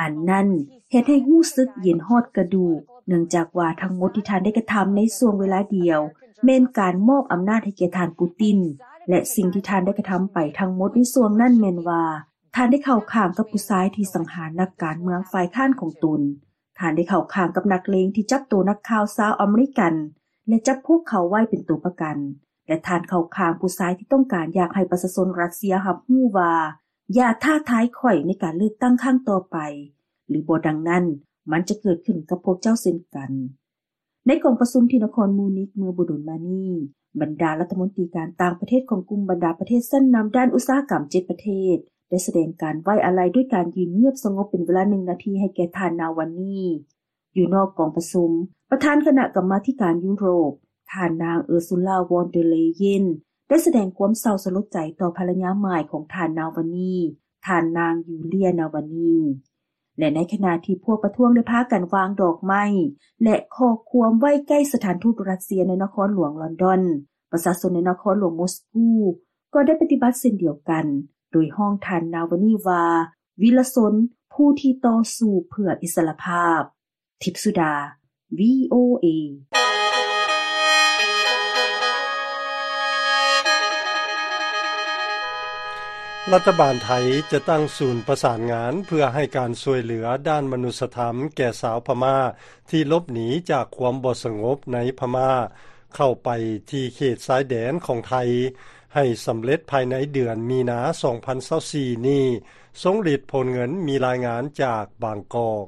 ອັນນັ້ນເຮັດໃຫ້ຮູ້ສຶກເຢັນຮອດກະດູກ, ເນື່ອງຈາກວ່າທັງໝົດທີ່ທ່ານໄດ້ກະທຳໃນຊ່ວງເວລາດຽວ ແມ່ນການມອບອຳນາດໃຫ້ແກ່ທ່ານປູຕິນ ແລະ ສິ່ງທີ່ທ່ານໄດ້ກະທຳໄປທັງໝົດໃນຊ່ວງນັ້ນແມ່ນວ່າ ທ່ານໄດ້ເຂົ້າຂ້າງກັບຜູ້ຊາຍທີ່ສັງຫານນັກການເມືອງຝ່າຍຄ້ານຂອງຕົນ. ທ່ານໄດ້ເຂົ້າຂ້າງກັບນັກເລງທີ່ຈັບໂຕນັກຂ່າວຊາວອາເມລິກັນ ແລະ ຈັບພວກເຂົາໄວ້ເປັນຕົວປະກັນ. ແລະ ທ່ານເຂົ້າຂ້າງຜູ້ຊາຍທີ່ຕ້ອງການຢາກໃຫ້ປະຊາຊົນຣັດເຊຍຮັບຮູ້ວ່າ ຢ່າທ້າທາຍຂ້ອຍໃນການເລືອກຕັ້ງຄັ້ງຕໍ່ໄປ, ຫຼື ບໍ່ດັ່ງນັ້ນ ມັນຈະເກີດຂຶ້ນກັບພວກເຈົ້າເຊັ່ນກັນ. ໃນກອງປະຊຸມທີ່ນະຄອນມູນິກເມື່ອບໍ່ດົນມານີ້, ບັນດາລັດຖະມົນຕີການຕ່າງປະເທດຂອງກຸ່ມບັນດາປະເທດຊັ້ນນຳດ້ານອຸດສາຫະກຳເຈັດປະເທດ ໄດ້ສະແດງການໄວ້ອາໄລດ້ວຍການຢືນງຽບສະຫງົບເປັນເວລາໜຶ່ງນາທີໃຫ້ແກ່ທ່ານ ນາວາລນີ. ຢູ່ນອກກອງປະຊຸມ, ປະທານຄະນະກຳມາທິການຢູໂຣບ, ທ່ານນາງ ເອີຊູລາ ວອນເດີເລເຢນ ໄດ້ສະແດງຄວາມເສົ້າສະຫຼົດໃຈຕໍ່ພັນລະຍາໃໝ່ຂອງທ່ານນາວານີ ທ່ານນາງ ຢູເລຍ ນາວານີ. ແລະໃນຂະນະທີ່ພວກປະທ້ວງໄດ້ພາກັນວາງດອກໄມ້ ແລະຂໍ້ຄວາມໄວ້ໃກ້ສະຖານທູດຣັດເຊຍໃນນະຄອນຫຼວງລອນດອນ, ປະຊາຊົນໃນນະຄອນຫຼວງມົສກູກໍໄດ້ປະຕິບັດເຊັ່ນດຽວກັນ ໂດຍຮ້ອງທ່ານນາວານີວ່າ ວິລະຊົນ ຜູ້ທີ່ຕໍ່ສູ້ເພື່ອອິດສະຫຼະພາບ. ທິບສຸດາ ວີໂອເອ. ລັດຖະບານໄທຈະຕັ້ງສູນປະສານງານເພື່ອໃຫ້ການຊ່ວຍເຫຼືອດ້ານມະນຸດສະທຳແກ່ຊາວພະມ້າທີ່ຫຼົບໜີຈາກຄວາມບໍ່ສະຫງົບໃນພະມ້າ ເຂົ້າໄປທີ່ເຂດຊາຍແດນຂອງໄທ ໃຫ້ສຳເລັດພາຍໃນເດືອນມີນາ ສອງພັນຊາວສີ່ນີ້. ຊົງລິດ ໂພນເງິນ ມີລາຍງານຈາກບາງກອກ.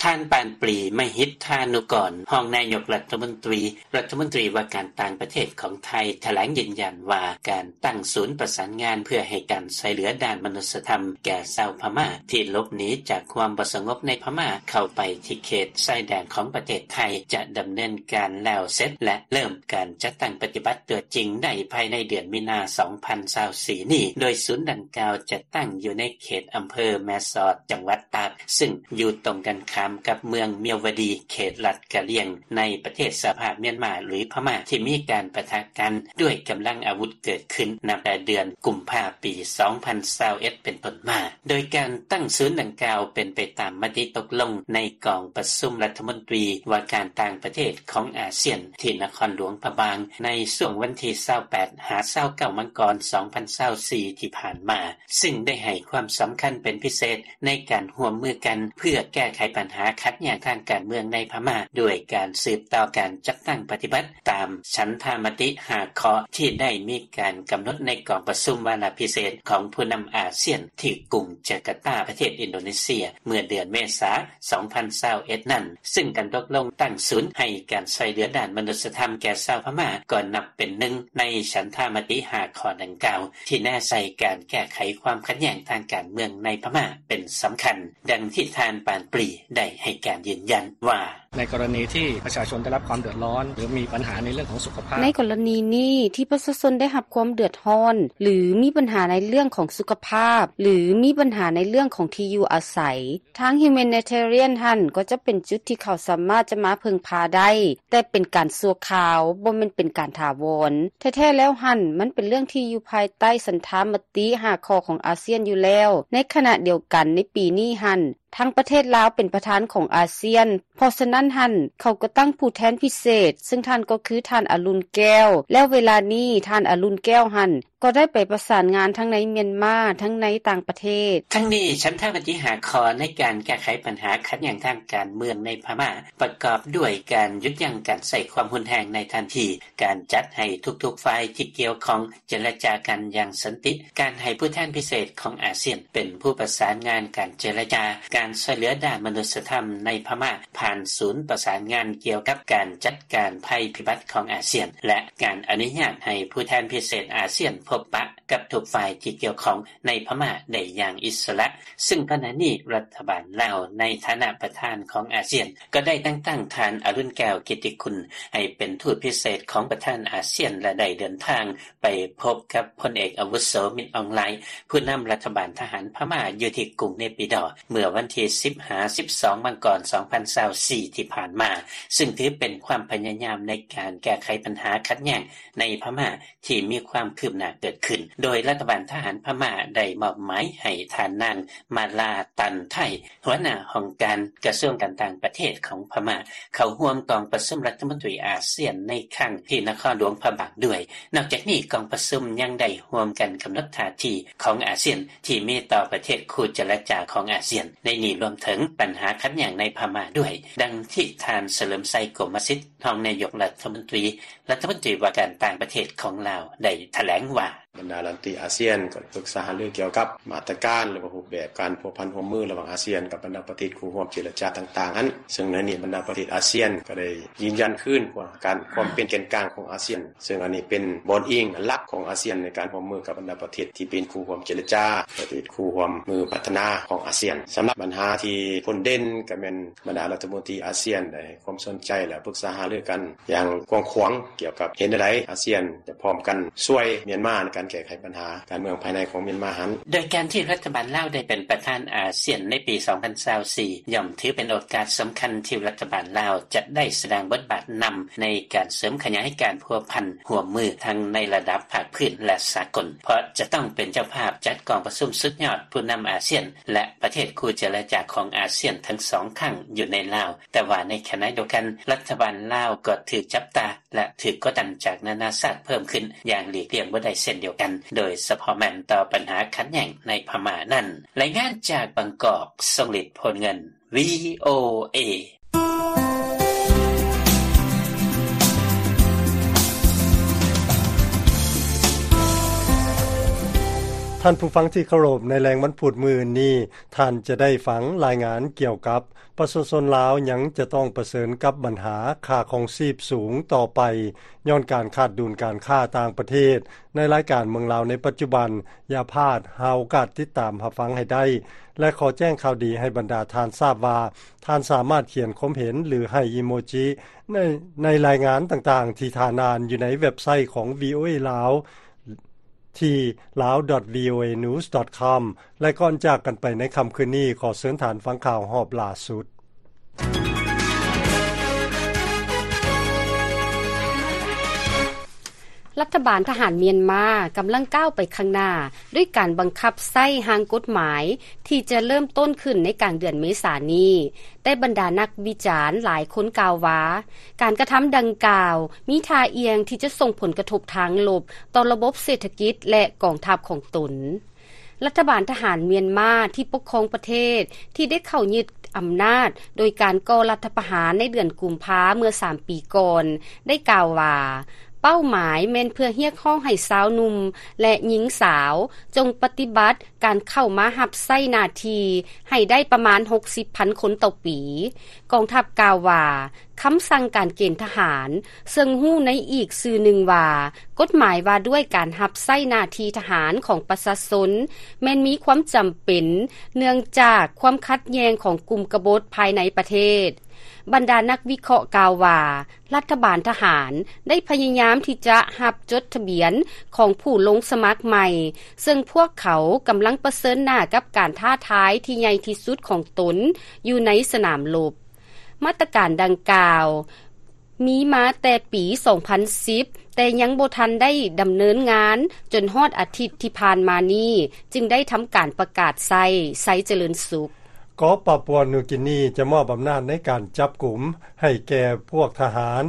ທ່ານ ປານປຣີ ມະຫິດທານຸກອນ ຮອງນາຍົກລັດຖະມົນຕີ ລັດຖະມົນຕີວ່າການຕ່າງປະເທດຂອງໄທ ຖະແຫຼງຢືນຢັນວ່າ ການຕັ້ງສູນປະສານງານເພື່ອໃຫ້ການຊ່ວຍເຫຼືອດ້ານມະນຸດສະທຳແກ່ຊາວພະມ້າທີ່ຫຼົບໜີຈາກຄວາມບໍ່ສະຫງົບໃນພະມ້າ ເຂົ້າໄປທີ່ເຂດຊາຍແດນຂອງປະເທດໄທ ຈະດຳເນີນການແລ້ວເສັດ ແລະ ເລີ່ມການຈັດຕັ້ງປະຕິບັດຕົວຈິງໄດ້ພາຍໃນເດືອນມີນາ ສອງພັນຊາວສີ່ນີ້ ໂດຍສູນດັ່ງກ່າວຈະຕັ້ງຢູ່ໃນເຂດອຳເພີແມ່ສອດ ຈັງຫວັດຕາກ ຊຶ່ງຢູ່ຕົງກັນຂ້າມກັບເມືອງມຽວວະດີ ເຂດລັດກະລຽງ ໃນປະເທດສະຫະພາບມຽນມາ ຫຼື ພະມ້າ ທີ່ມີການປະທະກັນດ້ວຍກຳລັງອາວຸດເກີດຂຶ້ນນັບແຕ່ເດືອນກຸມພາ ປີສອງພັນຊາວເອັດ ເປັນຕົ້ນມາ. ໂດຍການຕັ້ງສູນດັ່ງກ່າວເປັນໄປຕາມມະຕິຕົກລົງໃນກອງປະຊຸມລັດຖະມົນຕີວ່າການຕ່າງປະເທດຂອງອາຊຽນ ທີ່ນະຄອນຫຼວງພະບາງ ໃນຊ່ວງວັນທີຊາວແປດ ຫາ ຊາວເກົ້າ ມັງກອນ ສອງພັນຊາວສີ່ ທີ່ຜ່ານມາ, ຊຶ່ງໄດ້ໃຫ້ຄວາມສຳຄັນເປັນພິເສດໃນການຮ່ວມມືກັນເພື່ອແກ້ໄຂບັນຫາຂັດແຍ່ງທາງການເມືອງໃນພະມ້າ ດ້ວຍການສືບຕໍ່ການຈັດຕັ້ງປະຕິບັດຕາມສັນທາມະຕິຫ້າຂໍ້ທີ່ໄດ້ມີການກຳນົດໃນກອງປະຊຸມວາລະພິເສດຂອງຜູ້ນຳອາຊຽນ ທີ່ກຸງຈາກາຕາ ປະເທດອິນໂດເນເຊຍ ເມື່ອເດືອນເມສາ ສອງພັນຊາວເອັດນັ້ນ, ຊຶ່ງການຕົກລົງຕັ້ງສູນໃຫ້ການຊ່ວຍເຫຼືອດ້ານມະນຸດສະທຳແກ່ຊາວພະມ້າ ກໍນັບເປັນໜຶ່ງໃນສັນທາມະຕິຫ້າຂໍ້ດັ່ງກ່າວ ທີ່ແນໃສ່ການແກ້ໄຂຄວາມຂັດແຍ່ງທາງການເມືອງໃນພະມ້າເປັນສຳຄັນ, ດັ່ງທີ່ທ່ານ ປານປຣີ ໄດ້ໃຫ້ການຢືນຢັນວ່າ: ໃນກໍລະນີທີ່ປະຊາຊົນໄດ້ຮັບຄວາມເດືອດຮ້ອນ ຫຼື ມີບັນຫາໃນເລື່ອງຂອງສຸຂະພາບ ໃນກໍລະນີນີ້ທີ່ປະຊາຊົນໄດ້ຮັບຄວາມເດືອດຮ້ອນ ຫຼື ມີບັນຫາໃນເລື່ອງຂອງສຸຂະພາບ ຫຼື ມີບັນຫາໃນເລື່ອງຂອງທີ່ຢູ່ອາໄສ ທາງ Humanitarian ຫັ້ນກໍຈະເປັນຈຸດທີ່ເຂົາສາມາດຈະມາເພິ່ງພາໄດ້, ແຕ່ເປັນການຊົ່ວຄາວ, ບໍ່ແມ່ນເປັນການຖາວອນ. ແທ້ໆແລ້ວຫັ້ນ ມັນເປັນເລື່ອງທີ່ຢູ່ພາຍໃຕ້ສັນທາມະຕິຫ້າຂໍ້ຂອງອາຊຽນຢູ່ແລ້ວ. ໃນຂະນະດຽວກັນ ໃນປີນີ້ຫັ້ນ ທາງປະເທດລາວເປັນປະທານຂອງອາຊຽນ, ເພາະສະນັ້ນຫັ້ນ ເຂົາກໍຕັ້ງຜູ້ແທນພິເສດ, ເຊິ່ງທ່ານກໍຄືທ່ານ ອະລຸນ ແກ້ວ. ແລ້ວເວລານີ້ ທ່ານ ອະລຸນ ແກ້ວ ຫັ້ນ ກໍໄດ້ໄປປະສານງານທັງໃນມຽນມາ ທັງໃນຕ່າງປະເທດ. ທັງນີ້ ສັນທາມະຕິຫ້າຂໍ້ໃນການແກ້ໄຂບັນຫາຂັດແຍ່ງທາງການເມືອງໃນພະມ້າ ປະກອບດ້ວຍການຢຸດຢັ້ງການໃຊ້ຄວາມຮຸນແຮງໃນທັນທີ, ການຈັດໃຫ້ທຸກໆຝ່າຍທີ່ກ່ຽວຂ້ອງເຈລະຈາກັນຢ່າງສັນຕິ, ການໃຫ້ຜູ້ແທນພິເສດຂອງອາຊຽນເປັນຜູ້ປະສານງານການເຈລະຈາ, ການຊ່ວຍເຫຼືອດ້ານມະນຸດສະທຳໃນພະມ້າ ຜ່ານສູນປະສານງານກ່ຽວກັບການຈັດການໄພພິບັດຂອງອາຊຽນ ແລະ ການອະນຸຍາດໃຫ້ຜູ້ແທນພິເສດອາຊຽນພົບປະກັບທຸກຝ່າຍທີ່ກ່ຽວຂ້ອງໃນພະມ້າໄດ້ຢ່າງອິດສະຫຼະ, ຊຶ່ງຂະນະນີ້ລັດຖະບານລາວໃນຖານະປະທານຂອງອາຊຽນ ກໍໄດ້ແຕ່ງຕັ້ງທ່ານ ອະລຸນ ແກ້ວ ກິດຕິຄຸນ ໃຫ້ເປັນທູດພິເສດຂອງປະທານອາຊຽນ ແລະ ໄດ້ເດີນທາງ ໄປພົບກັບພົນເອກອາວຸໂສ ມິນ ອອງ ລາຍ ຜູ້ນຳລັດຖະບານທະຫານພະມ້າຢູ່ທີ່ກຸງເນປີດໍ ເມື່ອວັນທີສິບ ຫາ ສິບສອງ ມັງກອນ ສອງພັນຊາວສີ່ ທີ່ຜ່ານມາ, ຊຶ່ງຖືເປັນຄວາມພະຍາຍາມໃນການແກ້ໄຂບັນຫາຂັດແຍ່ງໃນພະມ້າທີ່ມີຄວາມຄືບໜ້າເກີດຂຶ້ນ, ໂດຍລັດຖະບານທະຫານພະມ້າໄດ້ມອບໝາຍໃຫ້ທ່ານນາງ ມາລາ ຕັນໄທ ຫົວໜ້າຫ້ອງການກະຊວງການຕ່າງປະເທດຂອງພະມ້າ ເຂົ້າຮ່ວມກອງປະຊຸມລັດຖະມົນຕີອາຊຽນໃນຄັ້ງທີ່ນະຄອນຫຼວງພະບາງດ້ວຍ. ນອກຈາກນີ້ ກອງປະຊຸມຍັງໄດ້ຮ່ວມກັນກຳນົດທ່າທີຂອງອາຊຽນທີ່ມີຕໍ່ປະເທດຄູ່ເຈລະຈາຂອງອາຊຽນ ໃນນີ້ລວມເຖິງບັນຫາຂັດແຍ່ງໃນພະມ້າດ້ວຍ, ດັ່ງທີ່ທ່ານ ສະເຫຼີມໄຊ ກົມມະສິດ ຮອງນາຍົກລັດຖະມົນຕີ ລັດຖະມົນຕີວ່າການຕ່າງປະເທດຂອງລາວ ໄດ້ຖະແຫຼງວ່າ: ບັນດາລັດຖະມົນຕີອາຊຽນກໍປຶກສາຫາລືກ່ຽວກັບມາດຕະການ ຫຼືວ່າຮູບແບບການພົວພັນຮ່ວມມືລະຫວ່າງອາຊຽນກັບບັນດາປະເທດຄູ່ຮ່ວມເຈລະຈາຕ່າງໆຫັ້ນ, ເຊິ່ງໃນນີ້ບັນດາປະເທດອາຊຽນກໍໄດ້ຢືນຢັນຄືນວ່າການ ຄວາມເປັນແກນກາງຂອງອາຊຽນ, ເຊິ່ງອັນນີ້ເປັນບ່ອນອີງຫຼັກຂອງອາຊຽນໃນການຮ່ວມມືກັບບັນດາປະເທດທີ່ເປັນຄູ່ຮ່ວມເຈລະຈາ, ປະເທດຄູ່ຮ່ວມມືພັດທະນາຂອງອາຊຽນ. ສຳລັບບັນຫາທີ່ພົ້ນເດັ່ນກໍແມ່ນບັນດາລັດຖະມົນຕີອາຊຽນໄດ້ ຄວາມສົນໃຈ ແລະ ປຶກສາຫາລືກັນຢ່າງກວ້າງຂວາງ ກ່ຽວກັບເຮັດແນວໃດອາຊຽນຈະພ້ອມກັນຊ່ວຍມຽນມາໃນການແກ້ໄຂບັນຫາການເມືອງພາຍໃນຂອງມຽນມາຫັ້ນ. ໂດຍການທີ່ລັດຖະບານລາວໄດ້ເປັນປະທານອາຊຽນໃນປີສອງພັນຊາວສີ່ ຍ່ອມຖືເປັນໂອກາດສຳຄັນທີ່ລັດຖະບານລາວຈະໄດ້ສະແດງບົດບາດນຳໃນການເສີມຂະຫຍາຍການພົວພັນຮ່ວມມືທັງໃນລະດັບພາກພື້ນ ແລະ ສາກົນ, ເພາະຈະຕ້ອງເປັນເຈົ້າພາບຈັດກອງປະຊຸມສຸດຍອດຜູ້ນຳອາຊຽນ ແລະ ປະເທດຄູ່ເຈລະຈາຂອງອາຊຽນທັງສອງຄັ້ງຢູ່ໃນລາວ. ແຕ່ວ່າໃນຂະນະດຽວກັນ ລັດຖະບານລາວກໍຖືກຈັບຕາ ແລະ ຖືກກົດດັນຈາກນານາຊາດເພີ່ມຂຶ້ນຢ່າງຫຼີກລ່ຽງບໍ່ໄດ້ເຊັ່ນດຽວກັນ, ໂດຍສະເພາະແມ່ນຕໍ່ບັນຫາຂັດແຍ່ງໃນພະມ້ານັ້ນ. ລາຍງານຈາກບາງກອກ, ຊົງລິດ ໂພນເງິນ ວີໂອເອ. ທ່ານຜູ້ຟັງທີ່ເຄົາລົບ, ໃນແລງວັນພຸດມື້ອື່ນນີ້ ທ່ານຈະໄດ້ຟັງລາຍງານກ່ຽວກັບ ປະຊາຊົນລາວຍັງຈະຕ້ອງປະເຊີນກັບບັນຫາຄ່າຄອງຊີບສູງຕໍ່ໄປ ຍ້ອນການຂາດດຸນການຄ້າຕ່າງປະເທດ. ໃນລາຍການເມືອງລາວໃນປັດຈຸບັນ, ຢ່າພາດ, ຫາໂອກາດຕິດຕາມຮັບຟັງໃຫ້ໄດ້ ແລະ ຂໍແຈ້ງຂ່າວດີໃຫ້ບັນດາທ່ານຊາບວ່າ ທ່ານສາມາດຂຽນຄວາມເຫັນ ຫຼື ໃຫ້ອີໂມຈິ ໃນ, ໃນລາຍງານຕ່າງໆທີ່ທ່ານອ່ານຢູ່ໃນເວັບໄຊຂອງ ວີໂອເອ ລາວ ທີ່ ลาว ດອດ ວີໂອເອ ນິວສ໌ ດອດ ຄອມ ແລະ ກ່ອນຈາກກັນໄປໃນຄ່ຳຄືນນີ້, ຂໍເຊີນທ່ານຟັງຂ່າວຮອບລ່າສຸດ. ລັດຖະບານທະຫານມຽນມາກຳລັງກ້າວໄປຂ້າງໜ້າ ດ້ວຍການບັງຄັບໃຊ້ຮ່າງກົດໝາຍທີ່ຈະເລີ່ມຕົ້ນຂຶ້ນໃນກາງເດືອນເມສານີ້, ແຕ່ບັນດານັກວິຈານຫຼາຍຄົນກ່າວວ່າ ການກະທຳດັ່ງກ່າວມີທ່າອ່ຽງທີ່ຈະສົ່ງຜົນກະທົບທາງລົບຕໍ່ລະບົບເສດຖະກິດ ແລະ ກອງທັບຂອງຕົນ. ລັດຖະບານທະຫານມຽນມາທີ່ປົກຄອງປະເທດ ທີ່ໄດ້ເຂົ້າຍຶດອຳນາດໂດຍການກໍ່ລັດຖະປະຫານໃນເດືອນກຸມພາເມື່ອສາມປີກ່ອນ ໄດ້ກ່າວວ່າ ເປົ້າໝາຍແມ່ນເພື່ອຮຽກຮ້ອງໃຫ້ຊາວໜຸ່ມ ແລະ ຍິງສາວ ຈົ່ງປະຕິບັດການເຂົ້າມາຮັບໃຊ້ໜ້າທີ່ໃຫ້ໄດ້ປະມານຫົກສິບພັນຄົນຕໍ່ປີ. ກອງທັບກ່າວວ່າ ຄຳສັ່ງການເກນທະຫານ, ເຊິ່ງຮູ້ໃນອີກຊື່ໜຶ່ງວ່າ ກົດໝາຍວ່າດ້ວຍການຮັບໃຊ້ໜ້າທີ່ທະຫານຂອງປະຊາຊົນ ແມ່ນມີຄວາມຈຳເປັນ ເນື່ອງຈາກຄວາມຂັດແຍ່ງຂອງກຸ່ມກະບົດພາຍໃນປະເທດ. ບັນດານັກວິເຄາະກ່າວວ່າ ລັດຖະບານທະຫານໄດ້ພະຍາຍາມທີ່ຈະຮັບຈົດທະບຽນຂອງຜູ້ລົງສະໝັກໃໝ່, ເຊິ່ງພວກເຂົາກຳລັງປະເຊີນໜ້າກັບການທ້າທາຍທີ່ໃຫຍ່ທີ່ສຸດຂອງຕົນຢູ່ໃນສະໜາມລົບ. ມາດຕະການດັ່ງກ່າວມີມາແຕ່ປີສອງພັນສິບ ແຕ່ຍັງບໍ່ທັນໄດ້ດຳເນີນງານຈົນຮອດອາທິດທີ່ຜ່ານມານີ້ ຈຶ່ງໄດ້ທຳການປະກາດໃຊ້. ໄຊຈະເລີນສຸກ. ເກາະປາປົວນິວກິນີຈະມອບອຳນາດໃນການຈັບກຸມໃຫ້ແກ່ພວກທະຫານ,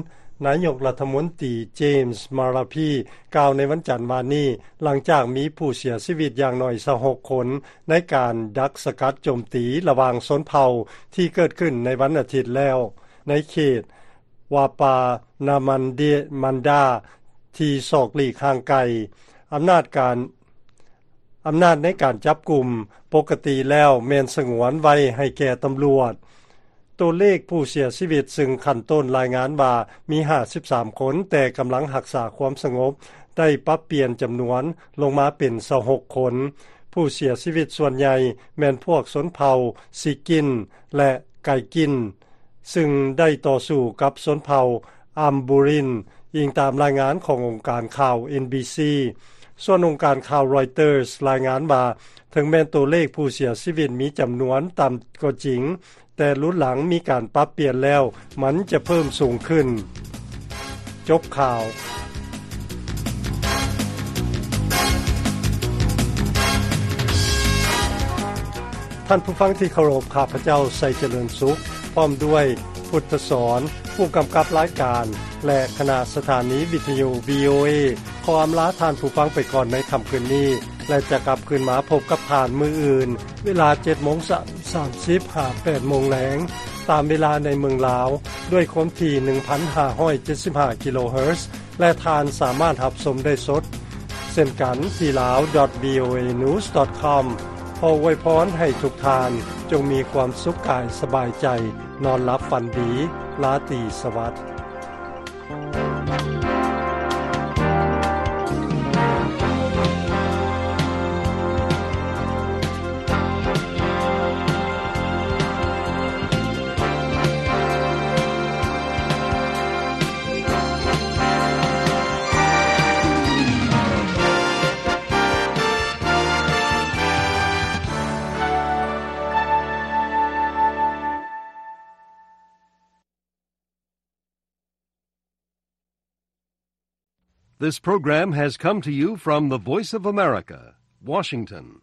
ນາຍົກລັດຖະມົນຕີ ເຈມສ໌ ມາລາພີ ກ່າວໃນວັນຈັນວານນີ້, ຫຼັງຈາກມີຜູ້ເສຍຊີວິດຢ່າງໜ້ອຍຊາວຫົກຄົນ ໃນການດັກສະກັດໂຈມຕີລະຫວ່າງຊົນເຜົ່າທີ່ເກີດຂຶ້ນໃນວັນອາທິດແລ້ວ ໃນເຂດວາປານາມັນເດ ມັນດາ ທີ່ສອກຫຼີກຫ່າງໄກ. ອຳນາດການ ອຳນາດໃນການຈັບກຸມປົກກະຕິແລ້ວແມ່ນສະຫງວນໄວ້ໃຫ້ແກ່ຕຳຫຼວດ. ຕົວເລກຜູ້ເສຍຊີວິດ, ຊຶ່ງຂັ້ນຕົ້ນລາຍງານວ່າມີຫ້າສິບສາມຄົນ, ແຕ່ກຳລັງຮັກສາຄວາມສະຫງົບໄດ້ປັບປ່ຽນຈຳນວນລົງມາເປັນຊາວຫົກຄົນ. ຜູ້ເສຍຊີວິດສ່ວນໃຫຍ່ແມ່ນພວກຊົນເຜົ່າຊີກິນ ແລະ ໄກກິນ, ຊຶ່ງໄດ້ຕໍ່ສູ້ກັບຊົນເຜົ່າອຳບູຣິນ, ອີງຕາມລາຍງານຂອງອົງການຂ່າວ ເອັນບີຊີ. ສ່ວນອົງການຂ່າວຣອຍເຕີສລາຍງານວ່າ ເຖິງແມ່ນຕົວເລກຜູ້ເສຍຊີວິດມີຈຳນວນຕ່ຳກໍຈິງ, ແຕ່ລຸນຫຼັງມີການປັບປ່ຽນແລ້ວ, ມັນຈະເພີ່ມສູງຂຶ້ນ. ຈົບຂ່າວ. ທ່ານຜູ້ຟັງທີ່ເຄົາລົບ, ຂ້າພະເຈົ້າ ໄຊຈະເລີນສຸກ ພ້ອມດ້ວຍ ພຸດທະສອນ ຜູ້ກຳກັບລາຍການ ແລະ ຄະນະສະຖານີວິທະຍຸ ວີໂອເອ ຂໍອຳລາທ່ານຜູ້ຟັງໄປກ່ອນໃນຄ່ຳຄືນນີ້ ແລະ ຈະກັບຄືນມາພົບກັບທ່ານມື້ອື່ນ ເວລາເຈັດໂມງ ສາມ ສາມສິບ ຫາ ແປດໂມງແລງ ຕາມເວລາໃນເມືອງລາວ ດ້ວຍຄວາມຖີ່ ໜຶ່ງພັນຫ້າຮ້ອຍເຈັດສິບຫ້າ ກິໂລເຮີດ ແລະ ທ່ານສາມາດຮັບຊົມໄດ້ສົດ ເຊັ່ນກັນທີ່ ลาว ดอท วี โอ เอ นิวส์ ดอท คอม ຂໍອວຍພອນໃຫ້ທຸກທ່ານຈົ່ງມີຄວາມສຸກກາຍສະບາຍໃຈ, ນອນຫຼັບຝັນດີ, ລາຕີສະຫວັດ. This program has come to you from the Voice of America, Washington.